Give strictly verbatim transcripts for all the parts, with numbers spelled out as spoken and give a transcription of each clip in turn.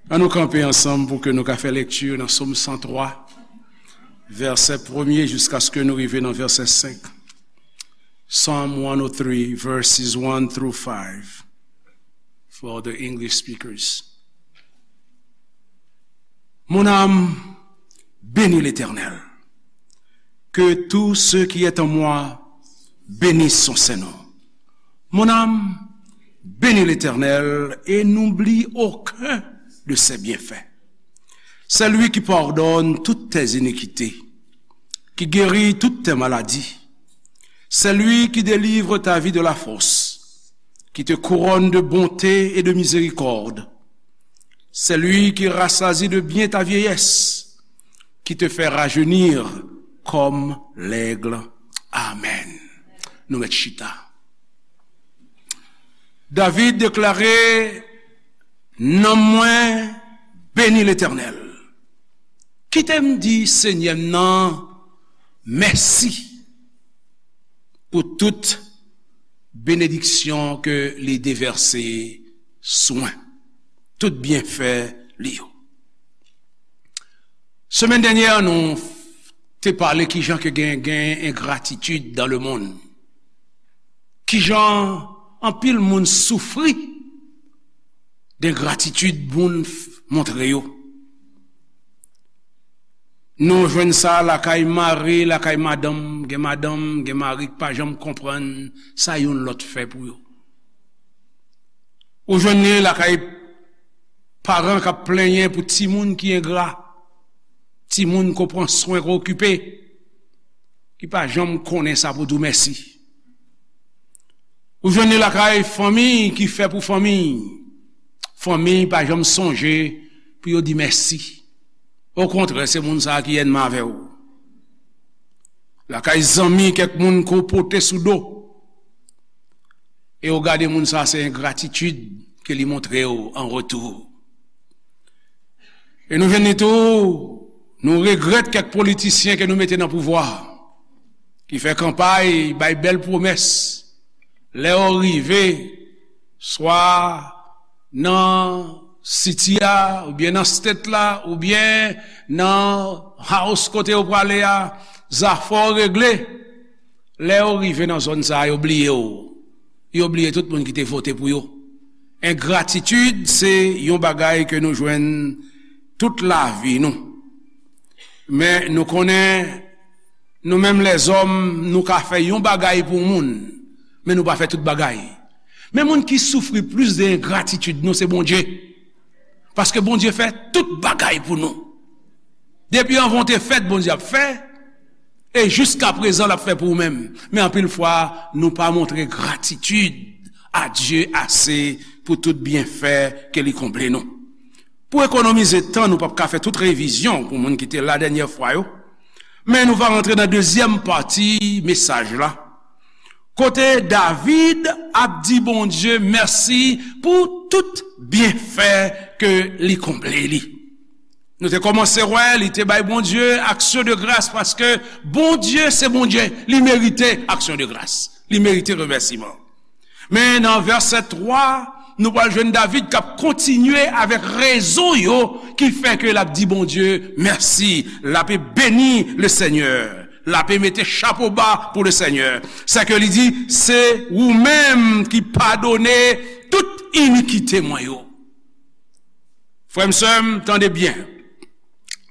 Ann nou kanpe ansanm pou ke nou ka fè lekti nan Sòm san twa, vèsè premye jiskaske nou rive nan vèsè senk. Psalm one oh three, verses one through five, for the English speakers. Mon âme, bénis l'Éternel. Que tout ce qui est en moi bénisse son saint nom. Mon âme, bénis l'Éternel et n'oublie aucun de ses bienfaits. C'est lui qui pardonne toutes tes iniquités, qui guérit toutes tes maladies. C'est lui qui délivre ta vie de la fosse, qui te couronne de bonté et de miséricorde. C'est lui qui rassasie de bien ta vieillesse, qui te fait rajeunir comme l'aigle. Amen. Nou mèt chita. David deklare, nanm mwen beni Letènèl. Kite m di Senyè m nan mèsi pou tout benediksyon ke li devèse sou mwen, tout byenfè li yo. Semèn dènyè, nou te pale kijan ke gen, gen engratitid dans le monde. Kijan anpil moun soufri dengratitid moun f-, montre yo. Nou jwenn sa lakay mari, lakay madanm, gen madanm, gen mari k pa janm konprann sa youn lòt fè pou yo. Ou jwenn li lakay paran k ap plenyen pou timoun ki engra, timoun ko pran swen, ko okipe, ki pa janm konnen sa pou di w mèsi. Ou jwenn li lakay fanmi ki fè pou fanmi, fanmi pa janm sonje pou yo di mèsi. Okontrè, se moun sa a ki ènmi avè w. Lakay zanmi, kèk moun ke w pote sou do, e w gade moun sa a, se engratitid ke li montre w an retou. E nou jwenn li tou, nou regrèt kèk politisyen ke nou mete nan pouvwa, ki fè kanpay, bay bèl pwomès. Lè yo rive, swa nan city a, oubyen nan state la, oubyen nan house kote yo prale a, zafè yo regle. Lè yo rive nan zòn sa a, yo bliye w. Yo bliye tout moun ki te vote pou yo. Engratitid se yon bagay ke nou jwenn tout lavi nou. Men nou konnen, nou menm lèzòm, nou ka fè yon bagay pou moun, men nou pa fè tout bagay. Men moun ki soufri plis de engratitid nou, se Bondye. Paske Bondye fè tout bagay pou nou. Depi anvan w te fèt, Bondye ap fè, e jiska prezan, l ap fè pou ou menm. Men anpil fwa, nou pa montre gratitid a Dye ase pou tout byenfè ke li konble nou. Pou ekonomize tan, nou p ap ka fè tout revizyon pou moun ki te la dènyè fwa yo. Men nou va rantre nan dezyèm pati mesaj la, kote David ap di Bondye mèsi pou tout byenfè ke li konble li. Nou te kòmanse wè, li te bay Bondye aksyon de gras, paske Bondye se Bondye, li merite aksyon de gras, li merite remèsiman. Men nan vèsè twa, nou pral jwenn David k ap kontinye avèk rezon yo ki fè ke l ap di Bondye mèsi. L ap beni Lesenyè. L ap mete chapo ba pou Lesenyè. Sa ke li di, se ou menm ki padone tout inikite mwen yo. Frè m, sè m, tande byen.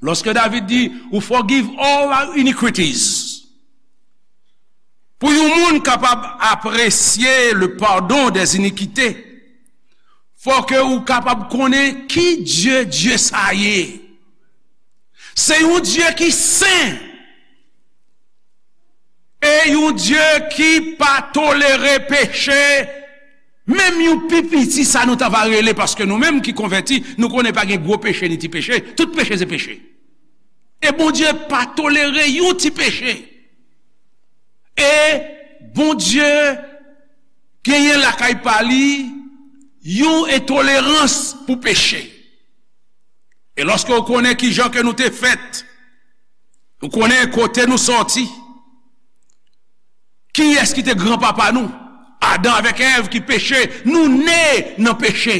Lòske David di, ou forgive all our iniquities. Pou yon moun kapab apresye le pardon des iniquités, fò ke ou kapab konnen ki Dye, Dye sa ye. Se yon Dye ki sen. E yon Dye ki pa tolere peche, menm yon pi piti sa nou ta va rele, paske nou menm ki konvèti, nou konnen pa gen gwo peche ni ti peche, tout peche se peche. E Bondye pa tolere yon ti peche. E Bondye genyen lakay pa li yon entolerans pou peche. E lòske w konnen kijan ke nou te fèt, ou konnen kote nou sòti, kiyès ki te granpapa nou, Adan avèk Èv ki peche, nou ne nan peche.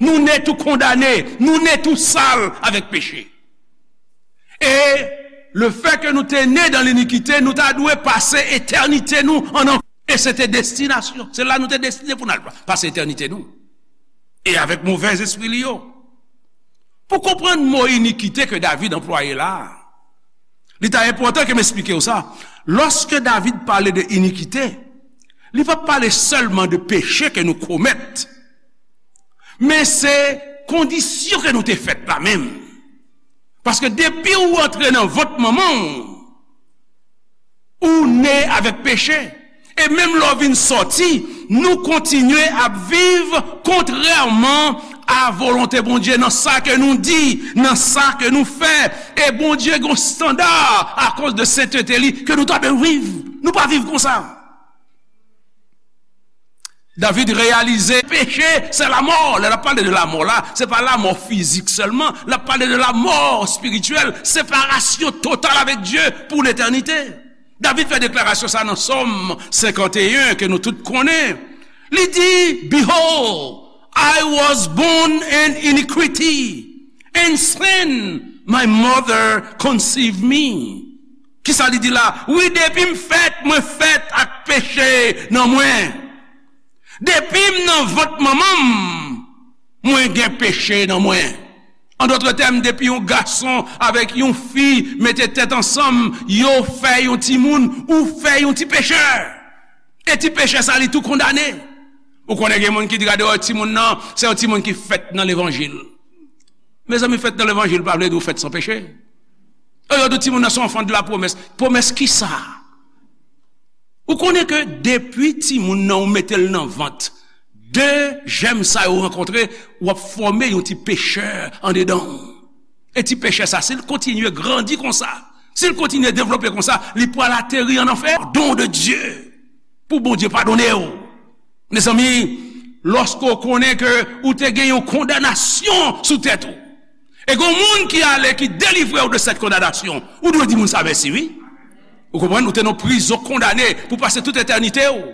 Nou ne tou kondane, nou ne tou sal avèk peche. E lefètke nou te ne dan linikite, nou ta dwe pase etènite nou an anfè. E se te destinasyon. Se la nou te destine pou n al pase etènite nou. E avèk movèzespri li yo. Pou konprann mo inikite ke David anplwaye la a, li ta enpòtan ke m esplike w sa. Lòske David pale de inikite, li p ap pale sèlman de peche ke nou komèt, men se kondisyon ke nou te fèt la menm. Paske depi w antre nan vant manman w, ou ne avèk peche. E menm lè w vin sòti, nou kontinye ap viv kontrèman a volonte Bondye nan sa ke nou di, nan sa ke nou fè. E Bondye gen yon estanda akoz de sentete li ke nou ta dwe viv. Nou pa viv konsa. David reyalize peche se lamò. Lè l ap pale de lamò la, se pa lamò fizik sèlman, l ap pale de lamò espirityèl, separasyon total avèk Dye pou letènite. David fè deklarasyon sa nan Sòm senkanteyen ke nou tout konnen. Li di, "Behold, I was born in iniquity, and sin my mother conceived me." Kisa li di la? Wi, depi m fèt, mwen fèt ak peche nan mwen. Depi m nan vant manman m, mwen gen peche nan mwen. An dòt tèm, depi yon gason avèk yon fi mete tèt ansanm, yo fè yon timoun, ou fè yon ti pechè. E ti pechè sa, li tou kondane. Ou konnen gen moun ki di, "Gade, wè, timoun nan, se yon timoun ki fèt nan levanjil." Mezanmi, fèt nan levanjil pa vle di ou fèt san peche. E yo di timoun nan se yon enfant de la promesse. Pwomès kisa? Ou konnen ke depi timoun nan ou mete l nan vant, de jèm sa yo rankontre, w ap fòme yon ti pechè andedan w. E ti pechè sa, si l kontinye grandi konsa, si l kontinye devlope konsa, li pral ateri an anfè. Don de Dye pou Bondye padone w. Mezanmi, lòske w konnen ke ou te gen yon kondanasyon sou tèt ou, e gen yon moun ki ale, ki delivre w de cette condamnation, ou dwe di moun sa mèsi, wi. Ou konprann? Ou te nan prizon, kondane pou pase tout etènite w.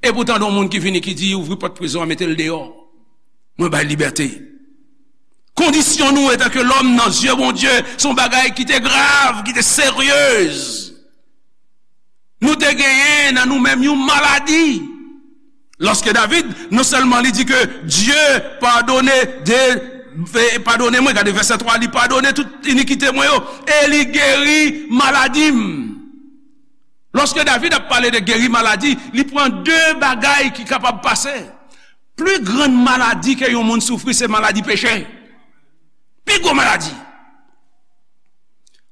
E poutan, gen yon moun ki vini, ki di, "Ouvri pòt prizon an, mete l deyò. Mwen bay libète." Kondisyon nou, antanke lòm, nan zye Bondye, se yon bagay ki te grav, ki te seryez. Nou te genyen nan nou menm yon maladi. Lòske David, non sèlman li di ke Dye padone de, e, padone mwen, gade vèsè twa, li padone tout inikite mwen yo, e li geri maladi m. Lòske David ap pale de geri maladi, li pran de bagay ki kapab pase. Pli grann maladi ke yon moun soufri, se maladi peche. Pi gwo maladi.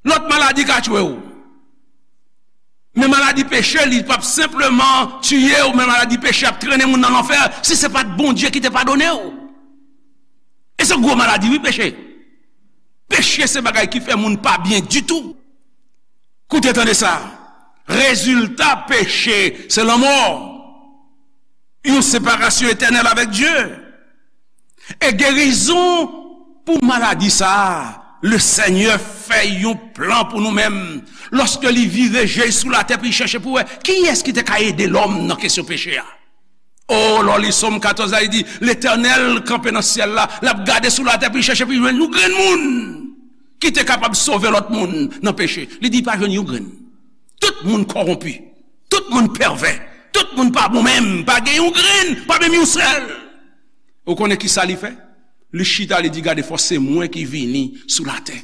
Lòt maladi ka tchwe w. Men maladi peche, li p ap senpleman tiye w, men maladi peche ap trennen moun nan lanfè, si se pa t Bondye ki te padone w. E se gwo maladi, wi, peche. Peche se bagay ki fè moun pa byen ditou. Koute, tande sa. Rezilta peche, se lanmò. Yon separasyon etènèl avèk Dye. E gerizon pou maladi sa a, Lesenyè fè yon plan pou nou menm. Lòske li vire je l sou latè pou li chèche pou wè kiyès ki te ka ede lòm nan kesyon peche a. O, lè w li Sòm katòz la, li di, Letènèl kanpe nan syèl la, l ap gade sou latè pou li chèche pou li jwenn yon grenn moun ki te kapab sove lòt moun nan peche. Li di, pa jwenn yon grenn. Tout moun kòwonpi. Tout moun pèvè. Tout moun pa bon menm. Pa gen yon grenn, pa menm yon sèl. Ou konnen ki sa li fè? Li chita, li di, gade, fò se mwen ki vini sou latè.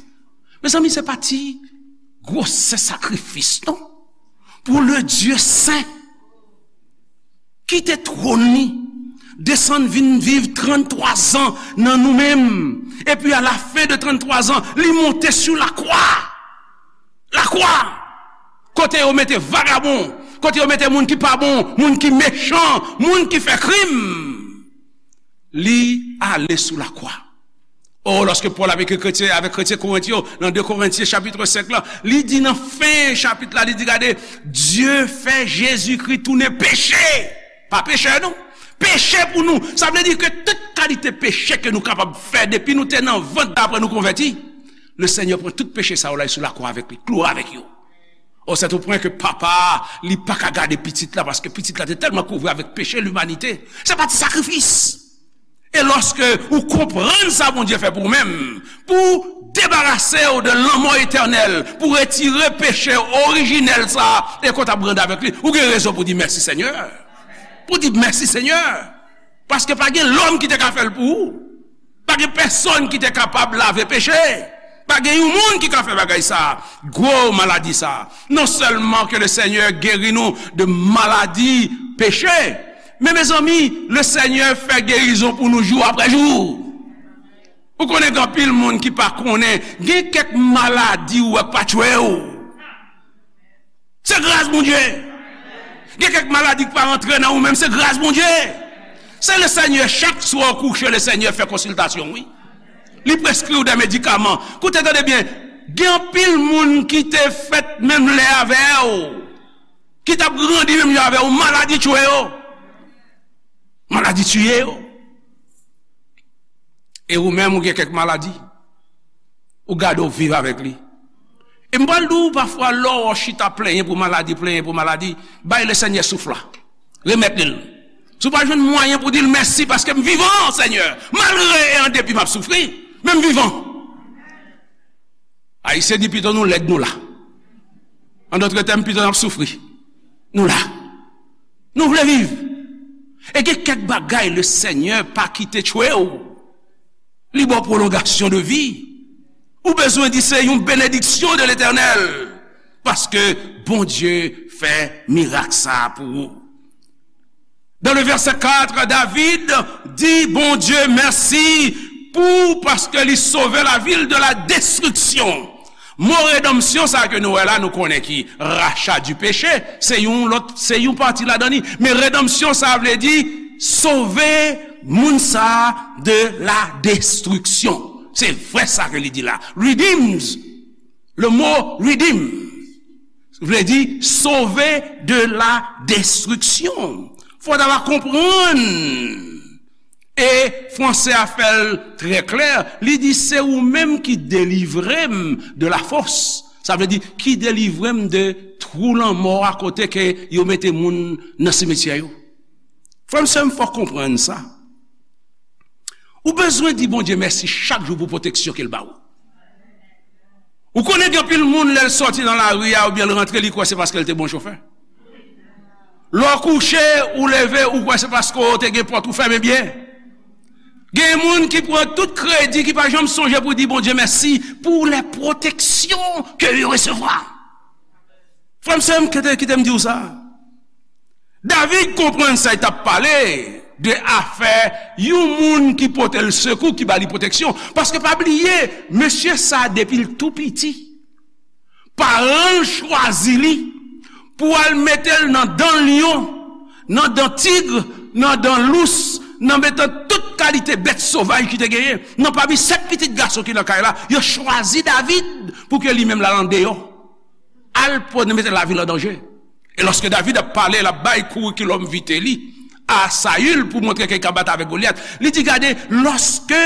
Mezanmi, se pa ti gwosè sakrifis, non? Pou le Dye sen, kite twòn li, desann vin viv tranntwa zan nan nou menm. Epi, a la fen de tranntwa zan, li monte sou lakwa. Lakwa! Kote yo mete vagabon, kote yo mete moun ki pa bon, moun ki mechan, moun ki fè krim. Li ale sou lakwa. O, lòske Pòl ap ekri kretyen, avèk kretyen Korent yo, nan de Korentyen chapit senk la, li di nan fen chapit la, li di, gade, Dye fè Jezikri tounen peche. Pa pechè, non. Peche pou nou. Sa vle di ke tout kalite peche ke nou kapab fè depi nou te nan vant apre nou konvèti, Lesenyè pran tout peche sa yo la sou lakwa avèk li, kloure avèk yo. O, c'est au point ke papa a, li pa ka gade pitit la, paske pitit la te tèlman kouvri avèk peche limanite. Se pa ti sakrifis. E lòske ou konprann sa Bondye fè pou ou menm, pou debarase w de lanmò etènèl, pou retire peche orijinèl sa a, e ke w t ap grandi avèk li, ou gen rezon pou di mèsi Senyè. Pou di mèsi Senyè. Paske pa gen lòm ki te ka fè l pou ou. Pa gen pèsonn ki te kapab lave peche. Pa gen yon moun ki ka fè bagay sa. Gwo maladi sa. Non sèlman ke le Senyè geri nou de maladi peche, men mezanmi, le Senyè fè gerizon pou nou jou apre jou. Ou konnen gen anpil moun ki pa konnen, gen kèk maladi ou wè k pa tchwe w. Se gras Bondye. Gen kèk maladi ki pa rantre nan ou menm, se gras Bondye. Se le Senyè, chak swa w kouche, le Senyè fè konsiltasyon, wi. Li preskri w de medikaman. Koute, tande byen, gen anpil moun ki te fèt menm lè avè w, ki t ap grandi menm jan avè w, maladi tchwe yo. Maladi tiye yo. E ou menm, ou gen kèk maladi. Ou gade w viv avèk li. E m pral di w, pafwa, lè w chita plenyen pou maladi, plenyen pou maladi, bay le Senyè souf la. Remèt li l. Si w pa jwenn mwayen pou di l mèsi paske m vivan, Senyè, malgre e an depi m ap soufri, men m vivan. Ayisyen di pito nou lèd nou la. An dòt tèm, pito n ap soufri. Nou la. Nou vle viv. E gen kèk bagay le Senyè pa kite tchwe w. Li ba w pwolongasyon de vi. Ou bezwen di se yon benediksyon de Letènèl. Paske Bondye fè mirak sa a pou ou. Dans le verset quatre, David di Bondye mèsi pou, paske li sove lavil de la destriksyon. Mo redanmsyon sa ke nou wè la, nou konnen ki rachat du péché, se yon lòt, se yon pati ladan li. Men redanmsyon sa vle di sove moun sa de la destriksyon. Se vre sa ke li di la. Redeems. Le mot redeem vle di sauver de la destruction. Fò ta va konprann. E franse a fè l trè klè. Li di, se ou menm ki delivre m de la fosse. Sa vle di, ki delivre m de twou lanmò a kote ke yo mete moun nan simityè yo. Frè m, sè m, fò konprann sa. Ou bezwen di Bondye mèsi chak jou pou pwoteksyon ke l ba ou. Ou konnen gen anpil moun, lè l sòti nan lari a oubyen l rantre, li kwè se paske l te bon chofè. Lè w kouche, ou leve, ou kwè se paske w te gen pòt ou fèmen byen. Gen moun ki pran tout kredi, ki pa janm sonje pou di Bondye mèsi pou lè pwoteksyon ke yo resevwa. Frè m, sè m, kite, kite m di w sa. David konprann sa, li t ap pale de afè yon moun ki pote l sekou, ki ba li pwoteksyon. Paske pa bliye, mesye sa a, depi l tou piti, paran l chwazi li pou al mete l nan dan lyon, nan dan tig, nan dan lous, nan mitan tout kalite bèt sovaj ki te genyen. Nan pami sèt pitit gason ki nan kay la, yo chwazi David pou ke li menm l al andeyò. Al pou mete lavi l an danje. E lòske David ap pale, l ap bay kourikilòm vite li a Sayil pou montre ke li ka bat avèk Golyat. Li di, gade, lòske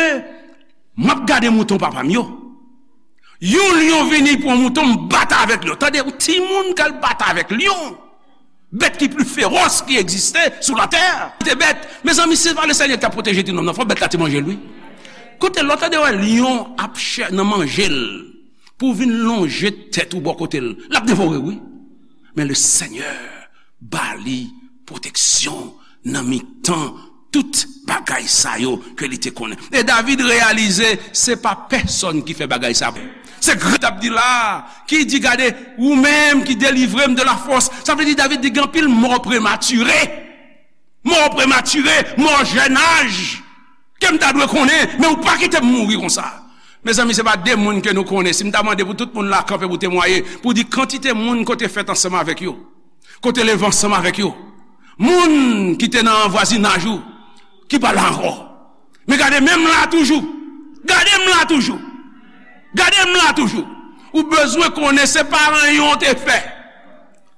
m ap gade mouton papa m yo, yon lyon vini pou yon mouton, m bat avèk lyon. Tande, yon timoun k al bat avèk lyon. Bèt ki pli fewòs ki egziste sou latè. Te bèt. Mezanmi, se pa le Senyè ki t ap pwoteje ti nonm nan. Fò bèt la te manje l, wi. Koute, lè w tande wè lyon ap chè nan manje l, pou w vin lonje tèt ou bò kote l, l ap devore w, wi. Men le Senyè ba li pwoteksyon nan mitan tout bagay sa yo ke li te konnen. E David reyalize se pa pèsonn ki fè bagay sa. Se Gad ap di la, ki di, gade, ou menm ki delivre m de la fosse. Sa vle di David di gen anpil mò prematire. Mò prematire, mò jèn aj. Ke m ta dwe konnen, men ou pa kite m mouri konsa. Mezanmi, se pa de moun ke nou konnen. Si m ta mande pou tout moun la kanpe pou temwaye, pou di kantite moun ke w te fèt ansanm avèk yo, ke w te leve ansanm avèk yo, moun ki te nan vwazinaj ou, ki pa la ankò. Men gade, men m la toujou. Gade m la toujou. Gade m la toujou. Ou bezwen konnen se pa ranyon w te fè.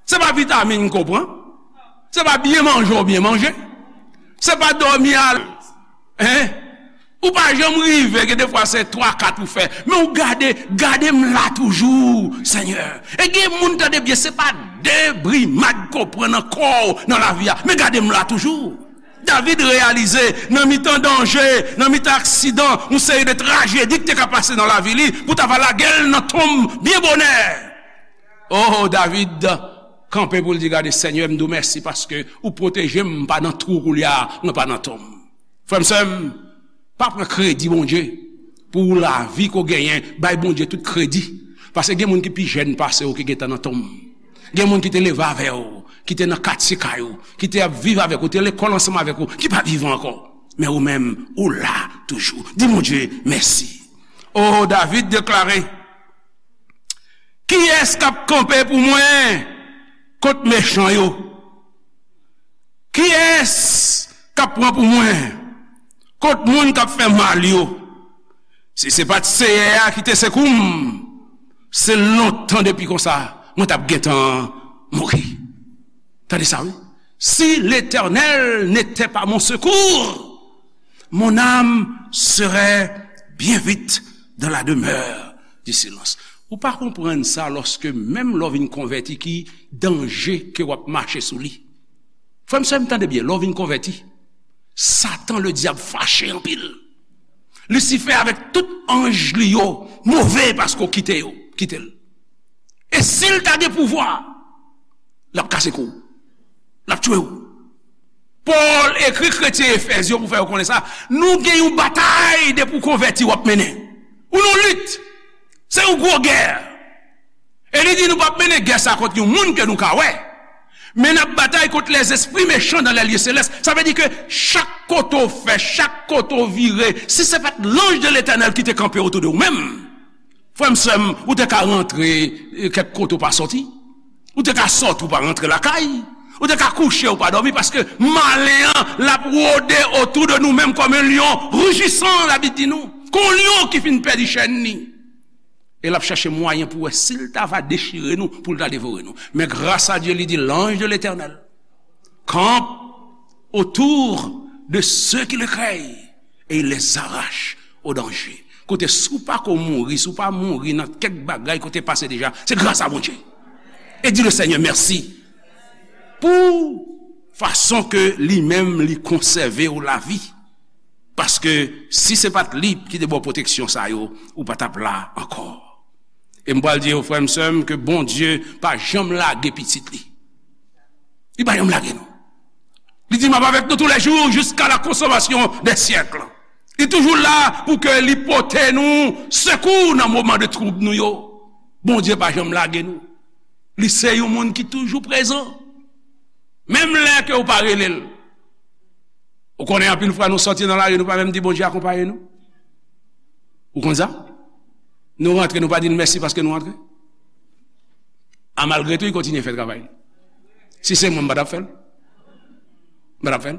Se pa vitamin ke w pran. Se pa byen manje w byen manje. Se pa dòmi al. Hein? Ou pa janm rive, gen defwa se twa, kat ou fè. Men ou gade, gade m la toujou, Senyè. E gen moun, tande byen, se pa de brimad ke w pran nan kò w, nan lavi a. Men gade m la toujou. David reyalize, nan mitan danje, nan mitan aksidan, yon seri de trajedi ki te ka pase nan lavi li, pou ta va lage l nan tonm byen bonè. Oh, David kanpe pou l di, "Gade, Senyè, m di w mèsi paske ou pwoteje m, m pa nan twou koulye a, mwen pa nan tonm." Frè m, sè m, pa pran kredi Bondye pou lavi ke w genyen, bay Bondye tout kredi. Paske gen moun ki pi jèn pase w ki gentan nan tonm. Gen moun ki te leve avè w, ki te nan katye kay ou, ki te ap viv avèk ou, te lekòl ansanm avèk ou, ki pa vivan ankò. Men ou menm, ou la toujou. Di Bondye mèsi. Oh, David deklare, "Kiyès k ap kanpe pou mwen kont mechan yo? Kiyès k ap pran pou mwen kont moun k ap fè mal yo? Si se pa t Seyè a ki te sekou m, se lontan depi konsa, mwen t ap gentan mouri." Tande sa, wi. "Si l'Éternel n'était pas mon secours, mon âme serait bien vite dans la demeure du silence." Ou pa konprann sa lòske menm lè w vin konvèti ki danje ke w ap mache sou li. Frè m, sè m, tande byen, lè w vin konvèti, Satan, le dyab, fache anpil. Lisifè avèk tout anj li yo move paske w kite yo, kite l. E si l ta gen pouvwa, l ap kase kou w, l ap tchwe w. Pòl ekri kretyen Efèz yo pou fè yo konnen sa. Nou gen yon batay depi w konvèti w ap mennen. Ou nan lit. Se yon gwo gè. E li di nou p ap mennen gè sa kont yon moun ke nou ka wè. Men n ap batay kont lèzespri mechan dan lèlye selès. Sa vle di ke chak kote w fè, chak kote w vire, si se pa t lanj de Letènèl ki te kanpe otou de ou menm, frè m, sè m, ou te ka rantre, eh, kèk kote ou pa sòti. Ou te ka sòti ou pa rantre lakay. Ou te ka kouche ou pa dòmi paske malen an, l ap wode otou de nou menm kòm yon lyon rijisan, Labib di nou. Kon yon lyon ki fin pèdi chèn li. E l ap chache mwayen pou wè si l ta va dechire nou, pou l ta devore nou. Men gras a Dye, li di, l'ange de l'Éternel campe autour de ceux qui le craignent et il les arrache au danger. Kote, si w pa ko mouri, si w pa mouri nan kèk bagay kote pase deja, se gras a Bondye. E di le Senyè mèsi pou fason ke li menm li konsève w lavi. Paske si se pa t li ki te ba w pwoteksyon sa yo, ou pa t ap la ankò. E m pral di yo, frè m, sè m, ke Bondye pa janm lage pitit li. Li pa janm lage nou. Li di, "M ap avèk nou tou lè jou jiska la konsomasyon dè syèk." Li toujou la pou ke li pote nou sekou nan moman de twoub nou yo. Bondye pa janm lage nou. Li se yon moun ki toujou prezan. Menm lè ke ou pa rele l. Ou konnen anpil fwa nou sòti nan lari, nou pa menm di Bondye akonpaye nou. Ou konn sa? Nou rantre, nou pa di l mèsi paske nou rantre. A malgre tou, li kontinye fè travay li. Si se mwen, m pa t ap fè l. M pa t ap fè l.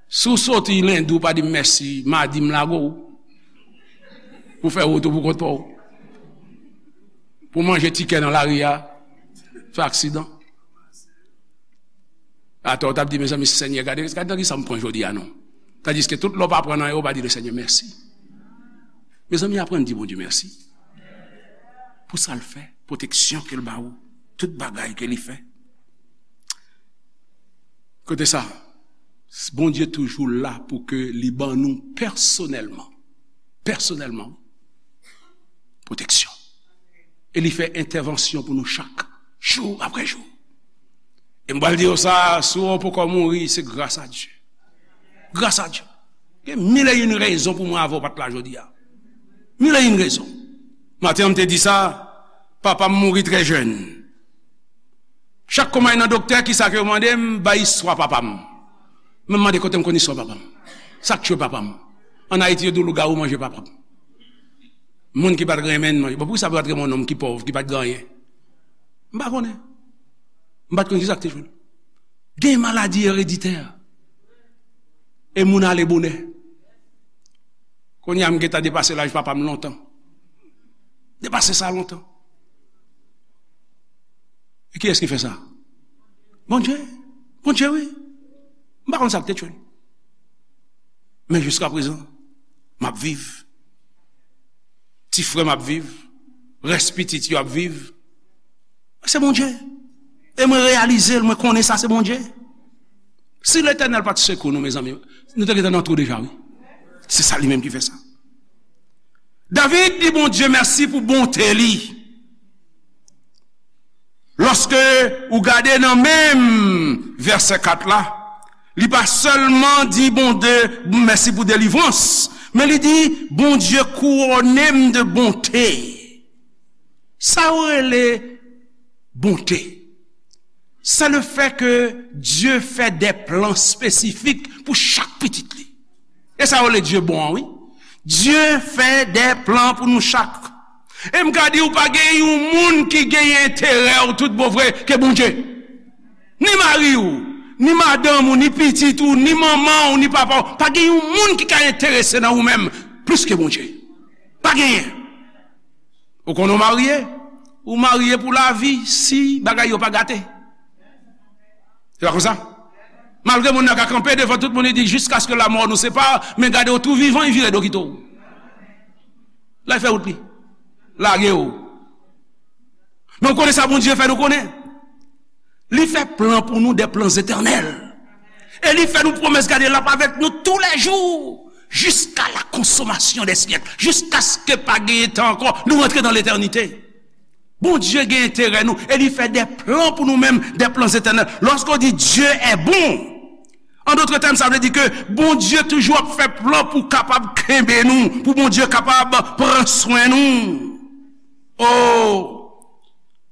Si w sòti lendi, w pa di m mèsi, madi m lage w. Pou fè wout ou pou kont pa w. Pou manje tikè nan lari a, fè aksidan. Atò, w t ap di, "Mezanmi, Senyè, gade, gade nan kisa m pran jodi a, non." Tandiske tout lè w pa pran anyen, w pa di le Senyè mèsi. Mezanmi, aprann di Bondye mèsi pou sa l fè, pwoteksyon ke l ba ou, tout bagay ke li fè. Kote sa, Bondye toujou la pou ke li ban nou pèsonèlman, pèsonèlman, pwoteksyon. E li fè entèvansyon pou nou chak, jou apre jou. E m pral di w sa, si w poko mouri, se gras a Dye. Gras a Dye. Gen mil e yon rezon pou mwen avè w pa t la jodi a. Mil e yon rezon. Maten an, m te di sa, papa m mouri trè jèn. Chak kou m al nan doktè, kisa ke yo mande m? Bay istwa papa m. Men m mande kote m konn istwa papa m. Sa k tchwe papa m? Ann Ayiti, yo di w lougawou manje papa m. Moun ki pa t renmen n manje. Bon, poukisa yo pa t renmen yon nonm ki pòv, ki pa t gen anyen? M pa konnen. M pa t konn kisa k te tchwe l. Gen maladi ereditè. E moun ale bonè. Kounye a, m gentan depase laj papa m lontan. Depase sa lontan. E kiyès ki fè sa? Bondye. Bondye, wi. M pa konn sa k te tchwe l. Men jiska prezan, m ap viv. Ti frè m ap viv. Rès pitit yo ap viv. Se Bondye. E mwen reyalize l, mwen konnen sa se Bondye. Si Letènèl pa t sekou nou, mezanmi, nou te gentan nan twou deja, wi. Se sa li menm ki fè sa. David di Bondye mèsi pou bonte li. Lòske ou gade nan menm vèsè kat la, li pa sèlman di Bondye mèsi pou delivrans, men li di, Bondye kouwone m de bonte. Sa yo rele bonte. Se le fè ke Dye fè de plan espesifik pou chak pitit li. E sa yo rele Dye bon an, wi. Dye fè de plan pou nou chak. E m ka di w, pa gen yon moun ki gen enterè w tout bon vre ke Bondye. Ni mari w, ni madanm ou, ni pitit ou, ni manman w, ni papa w. Pa gen yon moun ki ka enterese nan ou menm plis ke Bondye. Pa genyen. Ou konnen w marye? Ou marye pou lavi si bagay yo pa gate. Se pa konsa? Malgre moun nan ka kanpe devan tout moun, li di, jiskaske lamò nou separe, men gade w tou vivan, li vire do kite w. La, li fè wout li. Lage w. Men w konnen sa Bondye fè nou konnen? Li fè plan pou nou, de plan etènèl. E li fè nou pwomès, gade, l ap avèk nou toulejou, jiska la konsomasyon dè syèk, jiskaske pa genyen tan ankò, nou rantre nan letènite. Bondye gen enterè nou, e li fè de plan pou nou menm, de plan etènèl. Lòske w di Dieu est bon, an dòt tèm, sa vle di ke Bondye toujou ap fè plan pou kapab kenbe nou, pou Bondye kapab pran swen nou. Oh!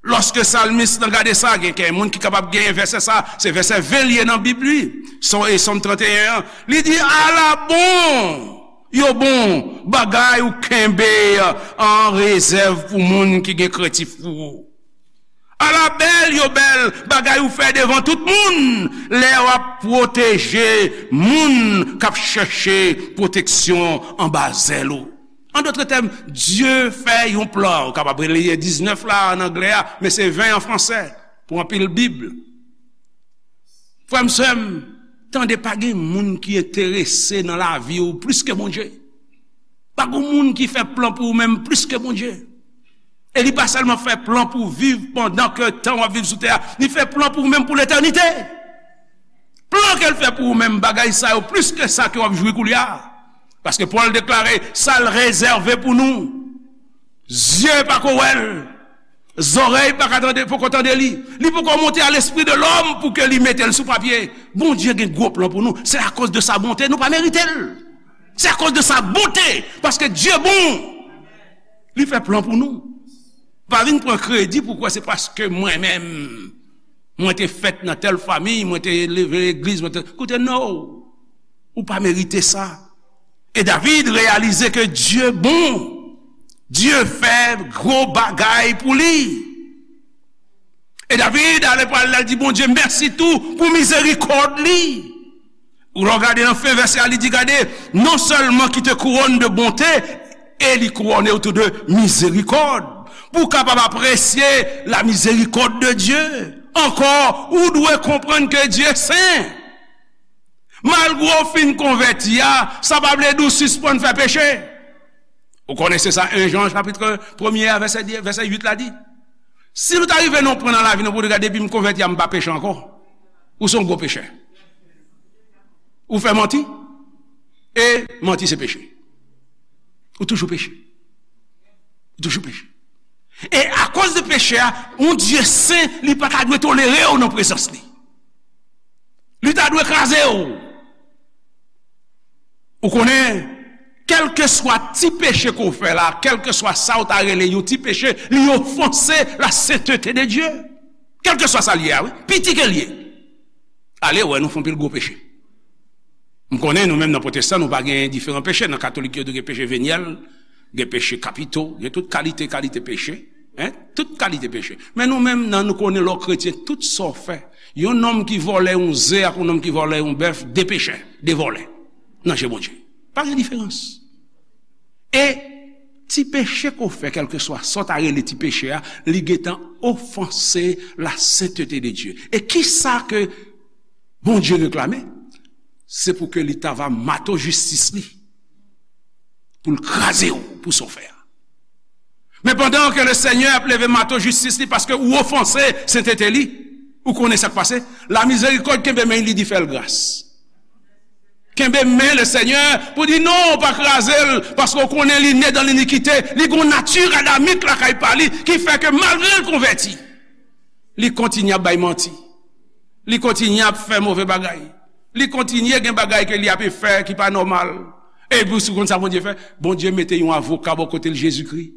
Lòske salmis lan gade sa, gen kèk moun ki kapab genyen vèsè sa, se vèsè ven li ye nan Bib li. Sòm, e Sòm trannteyen an, li di, ala bon, yo bon, bagay ou kenbe an rezèv pou moun ki gen krentif pou ou. Ala bèl yo bèl, bagay ou fè devan tout moun, lè w ap pwoteje moun k ap chèche pwoteksyon anba zèl ou. An dòt tèm, Dye fè yon plan. Ou kapab rele diznèf la an anglè a, men se ven an fransè pou anpil Bib. Frè m, sè m, tande, pa gen moun ki enterese nan lavi w plis ke Bondye. Pa gen moun ki fè plan pou ou menm plis ke Bondye. E li pa sèlman fè plan pou w viv pandan ke tan w ap viv sou tè a, li fè plan pou ou menm pou letènite. Plan ke l fè pou ou menm, bagay sa yo plis ke sa ke w ap jwi koulye a. Paske Pòl deklare, sa l rezève pou nou, zye pa ko wè l, zòrèy pa ka tande, poko tande li, li poko monte a lespri de lòm pou ke li mete l sou papye. Bondye gen gwo plan pou nou. Se akoz de sa bonte, nou pa merite l. Se akoz de sa bonte, paske Dye bon. Li fè plan pou nou. Pa vin pran kredi pou kwè se paske mwen menm, mwen te fèt nan tèl fanmi, mwen te leve legliz, mwen te, koute, no. Ou pa merite sa. E David reyalize ke Dye bon. Dye fè gwo bagay pou li. E David ale pral, l al di Bondye mèsi tou pou mizerikòd li. Ou lè w gade nan fen vèsè a, li di, gade, non sèlman ki te kouwone de bonte, e li kouwone w tou de mizerikòd. Pou w kapab apresye la miséricorde de Dieu. Ankò, ou dwe konprann ke Dye sen. Malgre w fin konvèti a, sa pa vle di w sispann fè peche. Ou konnen se sa en Jan chapit premye a, vèsè, vèsè uit la di. Si nou ta rive nan yon pwen nan lavi nou pou nou gade, depi m konvèti a, m pa peche ankò. Ou se yon gwo pechè. Ou fè manti. E manti se peche. Ou toujou peche. Ou toujou peche. E akoz de peche a, yon Dye sen, li pa ta dwe tolere w nan prezans li. Li ta dwe kraze w. Ou konnen, kèlkeswa ti peche ke w fè la, kèlkeswa sa w ta rele yon ti peche, li ofanse la sainteté de Dieu. Kèlkeswa sa l ye a, wi. Piti ke l ye. Ale wè, nou fè anpil gwo peche. M konnen nou menm nan pwotestan, nou pa gen diferan peche. Nan katolik yo tou gen peche venyèl, gen peche kapito, gen tout kalite, kalite peche. Hein? Tout kalite peche. Men nou menm nan, nou konnen lè w kretyen, tout sa w fè. Yon nonm ki vòlè yon ze ak yon nonm ki vòlè yon bèf, de pechè, de vòlè. Nan je Bondye. Pa gen diferans. E ti peche ke w fè, kèlkeswa sa w ta rele ti peche a, li gentan ofanse la sainteté de Dieu. E kisa ke Bondye reklame? Se pou ke li ta va mato jistis li, pou l kraze w pou sa w fè a. Men pandan ke le Senyè ap leve mato jistis li paske ou ofanse sainteté li, Ou konnen sa k pase? La mizerikòd kenbe men li, di fè l gras. Kenbe men Lesenyè pou di non, pa kraze l, paske w konnen li ne dan linikite, li gon nati adamik lakay pa li ki fè ke malgre l konvèti, li kontinye ap bay manti, li kontinye ap fè move bagay, li kontinye gen bagay ke li ap fè ki pa nòmal. Epi w konn sa Bondye fè? Bondye mete yon avoka bò kote l, Jezikri,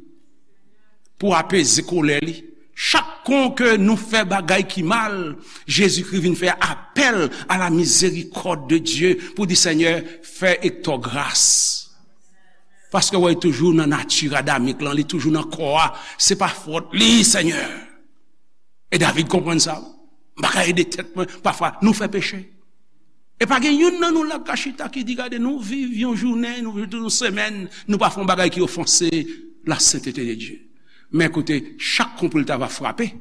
pou apeze kolè li. Chak kon ke nou fè bagay ki mal, Jezikri vin fè apèl a la mizerikòd de Dye pou di, Senyè, fè Ektò gras. Paske wè, li toujou nan nati adamik lan, li toujou nan kò a. Se pa fòt li, Senyè. E David konprann sa. M pa ka ede tèt mwen. Pafwa, nou fè peche. E pa gen youn nan nou la k ka chita ki di, gade, nou viv yon jounen, nou viv tout yon semèn, nou pa fè yon bagay ki ofanse la sentete de Dye. Men koute, chak kon pou l ta va frape,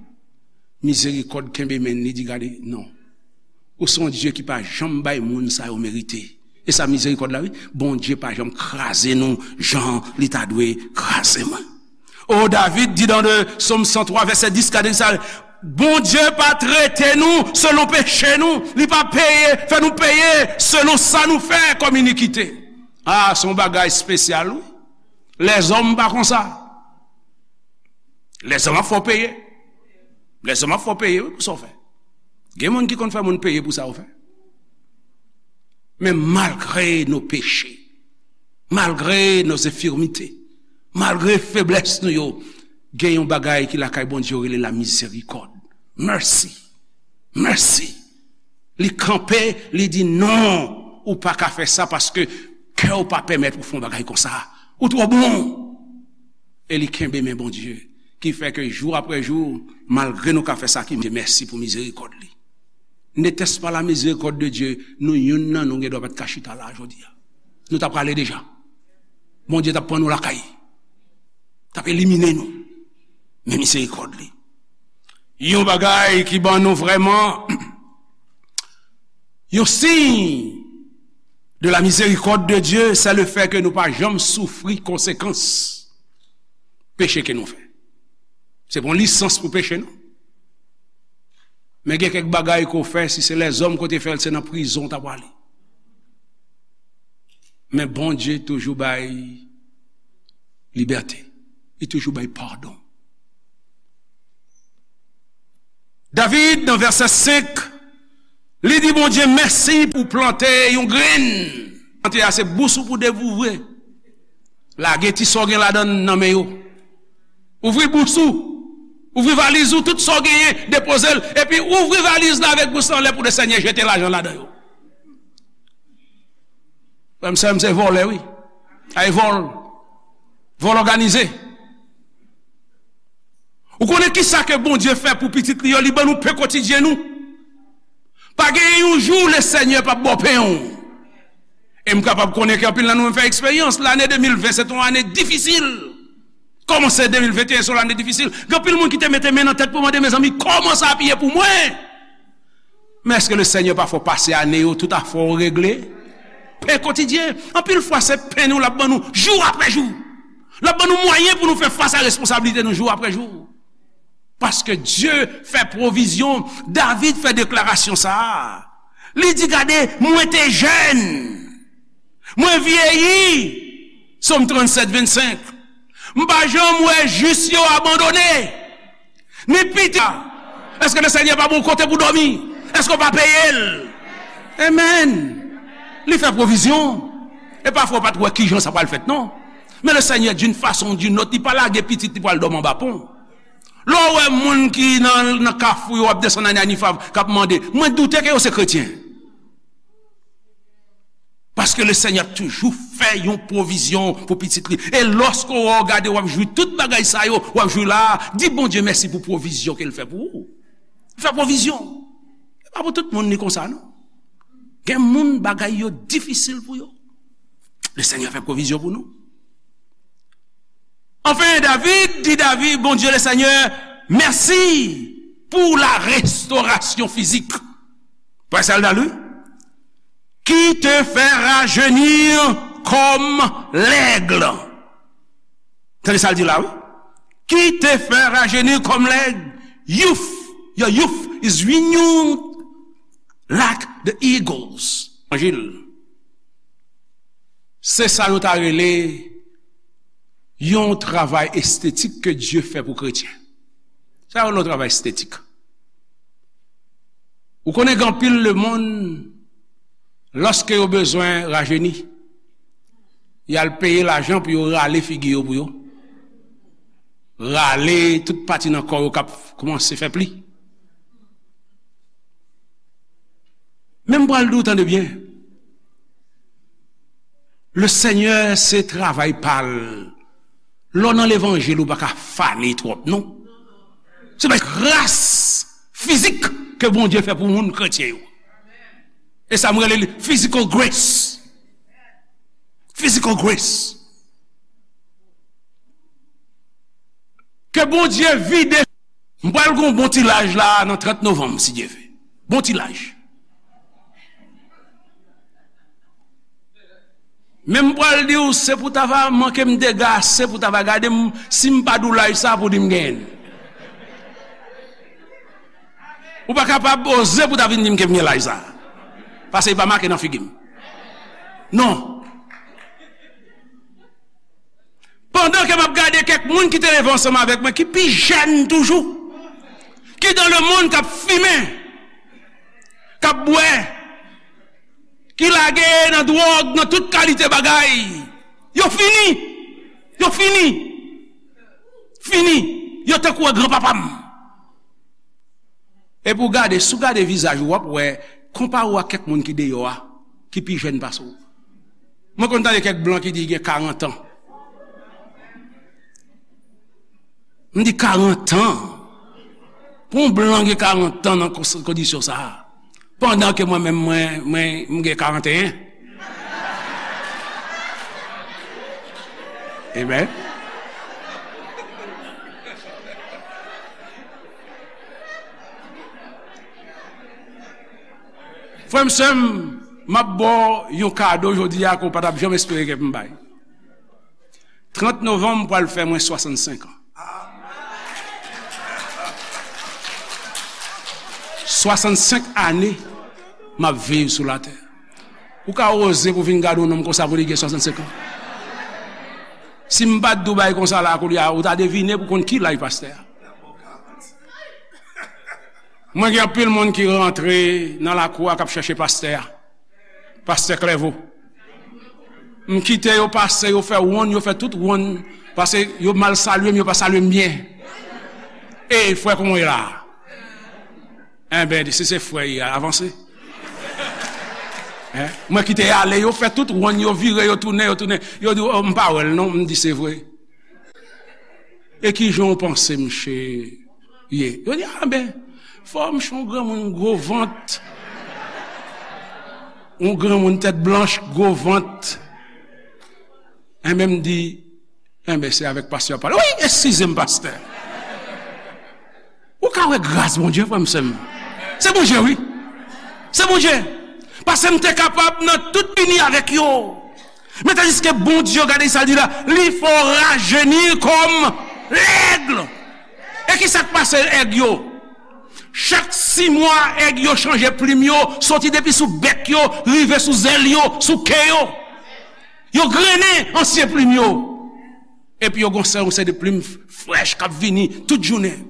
mizerikòd kenbe men li, di, gade, non. Ou se yon Dye ki pa janm bay moun sa yo merite. E sa mizerikòd la, wi. Bondye pa janm kraze nou jan li ta dwe kraze mwen. O, David di dan de Sòm san twa, vèsè dis, gade sa, Bondye pa trete nou selon peche nou, li pa peye, fè nou peye selon sa nou fè kòm inikite. A, se yon bagay espesyal, wi. Lèzòm pa konsa. Lèzòm ap fè w peye. Lèzòm ap fè w peye, wi, pou sa w fè. Gen moun ki konn fè moun peye pou sa yo fè. Men malgre nos péchés, malgre nos infirmités, malgre feblès nou yo, gen yon bagay ki lakay Bondye yo rele la miséricorde. Mercy. Mercy. Li kanpe, li di, non, ou pa ka fè sa paske kè w pa pèmèt ou fè yon bagay konsa. Ou twò bon. E li kenbe men Bondye, ki fè ke jou apre jou, malgre nou ka fè sa ki mèsi pou mizerikòd li. N'était-ce pas la miséricorde de Dieu, nou youn nan nou gen dwa pa t ka chita la jodi a. Nou t ap prale deja. Bondye t ap pran nou lakay. T ap elimine nou. Men mizerikòd li. Yon bagay ki ban nou vrèman yon siy de la miséricorde de Dieu, c'est le fait que nou pa janm soufri konsekans peche ke nou fè. Se pa yon lisans pou peche, non. Men gen kèk bagay ke w fè, si se lèzòm ke w te fè l, se nan prizon w ta prale. Men Bondye toujou bay libète. Li toujou bay padon. David, nan vèsè senk, li di Bondye mèsi pou plante yon grenn. Plante a se bous ou pou devoure. Lage ti sa w gen ladan l nan men yo. Ouvri bous ou. Ouvri valiz ou, tout sa w genyen, depoze l. Epi ouvri valiz la avèk bous la anlè pou Lesenyè jete lajan ladan yo. Frè m, sè m, se vòlè, wi. Ay vòl. Vòl òganize. Ou konnen kisa ke Bondye fè pou pitit li yo? Li ban nou pen kotidyen nou. Pa gen yon jou Lesenyè p ap ba w pen w. E m kapab konnen ke anpil nan nou menm fè eksperyans. Lane de mil ven se te yon ane difisil. Kòmanse de mil venteyen se yon lane difisil. Gen anpil moun ki te mete men nan tèt pou mande, mezanmi, kòman sa ap ye pou mwen? Men èske Lesenyè pa fè w pase ane yo, tout afè w regle? Pen kotidyen. Anpil fwa, se pen nou l ap ban nou jou apre jou. L ap ban nou mwayen pou nou fè fas a responsablite nou jou apre jou. Paske Dye fè pwovizyon. David fè deklarasyon sa a. Li di, gade, mwen te jèn. Mwen vyeyi. Sòm trannsèt, vennsenk. M pa janm wè jis yo abandone. Ni piti. Èske Lesenyè pa ba w kote pou dòmi? Èske w pa peye l? Amen. Li fè pwovizyon. E pafwa w pa t wè kijan sa pral fèt, non. Men Lesenyè, d'une façon ou d'une autre, li pa lage pitit li pou al dòmi anba pon. Lè w wè moun ki nan, nan kafou yo ap desann nan Niniv k ap mande, mwen doute ke yo se kretyen. Paske Lesenyè ap toujou fè yon pwovizyon pou pitit li. E lòske w wè w gade, w ap jwi tout bagay sa yo, w ap jwi la, di Bondye mèsi pou pwovizyon ke l fè pou ou. Fè pwovizyon. E pa pou tout moun li konsa, non. Gen moun bagay yo difisil pou yo. Lesenyè fè pwovizyon pou nou. Anfen, David di David, Bondye Lesenyè, mèsi pou la restorasyon fizik. Pwè sèl dan li, qui te fait rajeunir comme l'aigle. Tande sa l di la, wi. Qui te fait rajeunir comme l'aigle, youth Your youth is renewed like the eagles. Levanjil. Se sa yo ta rele yon travay estetik ke Dye fè pou kretyen. Sa yo rele yon travay estetik. Ou konnen gen anpil lemonn, lòske yo bezwen rajeni, y al peye lajan pou yo rale figi yo pou yo. Rale tout pati nan kò yo k ap kòmanse fè pli. Men m pral di w, tande byen. Le Senyè se travay pa l. Lè w nan levanjil, ou pa ka fane twòp, non. Se pa gras fizik ke Bondye fè pou moun kretyen yo. E sa m rele li physical grace. Physical grace. Ke Bondye vide. M pral gen yon bon ti laj la nan trant novanm, si Dye vle. Bon ti laj. Men m pral di w, se pou ta va manke m dega ase pou ta va gade m, si m pa di w laj sa pou di m genyen l. Ou pa kapab oze pou ta vin di m ke m gen laj sa. Paske li pa make nan figi m. Non. Pandan ke m ap gade kèk moun ki te leve ansanm avèk mwen, ki pi jèn toujou, ki dans le monde, k ap fimen, k ap bwè, ki lage nan dwòg, nan tout kalite bagay, yo fini. Yo fini. Fini. Yo tankou granpapa m. Epi w gade, si w gade vizaj ou, w ap wè, konpare w ak kèk moun ki deyò a, ki pi jèn pase w. Mwen konn tande kèk blan ki di gen karant an. M di karant an. Pou yon blan gen karant an nan kons-, kondisyon sa a. Pandan ke mwen menm, mwen, mwen, m gen karanteyen. Amen. Frè m, sè m, m ap ba w yon kado jodi a ke w pa t ap janm espere ke m bay. Trant novanm pral fè mwen swasannsenk an. Swasannsenk ane m ap viv sou latè. Ou ka oze pou vin gade yon nonm konsa pou li gen swasannsenk an? Si m pa t di w bagay konsa la koulye a, ou ta devine pou konn ki laj pastè a. Mwen gen anpil moun ki rantre nan lakou a k ap chèche pastè a. Pastè Klèvo. M kite yo pase, yo fè wonn, yo fè tout wonn, paske yo mal salye m, yo pa salye m byen. E frè, kòman w ye la? Enben, si se frè y a, avanse. Hein? Mwen kite y ale, yo fè tout wonn, yo vire, yo tounen, yo tounen. Yo di, "Oh, m pa wè l non," m di, "Se vre." E ki jan w panse misye ye? Yo di, "Ah, ben, fò misye yon granmoun gwo vant. Yon granmoun tèt blanch, gwo vant." Enben, m di, "Enben, se avèk pastè w ap pale." "Wi, eskize m, pastè." Ou ka wè gras Bondye, frè m, sè m. Se Bondye, wi. Se Bondye. Paske m te kapab nan tout ini avèk yo. Men tandiske Bondye, gade sa l di la, li fè w rajeni kòm lèg. E ki sa k pase èg yo? Chak sis mwa, èg yo chanje plim yo, soti depi sou bèk yo, rive sou zèl yo, sou ke yo. Yo grennen ansyen plim yo. Epi yo gon sè, yon seri de plim frèch k ap vini tout jounen.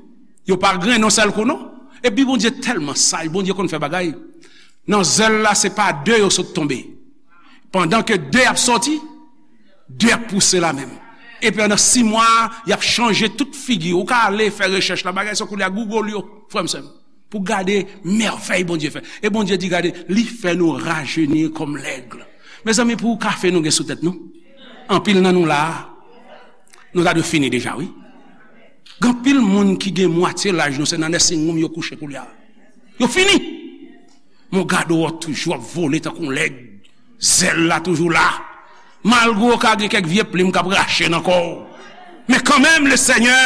Yo pa grennen yon sèl kou, non. Epi Bondye tèlman saj, Bondye konn fè bagay. Nan zèl la, se pa de yo sot tonbe. Pandan ke de ap sòti, de ap pouse la menm. Epi andan sis mwa, y ap chanje tout figi. Ou ka ale fè rechèch la, bagay sa koulye a, Google yo, frè m, sè m, pou gade mèvèy Bondye fè. E Bondye di, gade, li fè nou rajeni kòm lèg. Mezanmi, pou kafe nou gen sou tèt nou? Anpil nan nou la a, nou ta dwe fini deja, wi. Gen anpil moun ki gen mwatye laj nou, se nan nursing home yo kouche koulye a. Yo fini. Men w gade w toujou ap vole tankou yon lèg. Zèl la toujou la. Malgre w ka gen kèk vye plim k ap rache nan kò w. Men kanmenm, le Senyè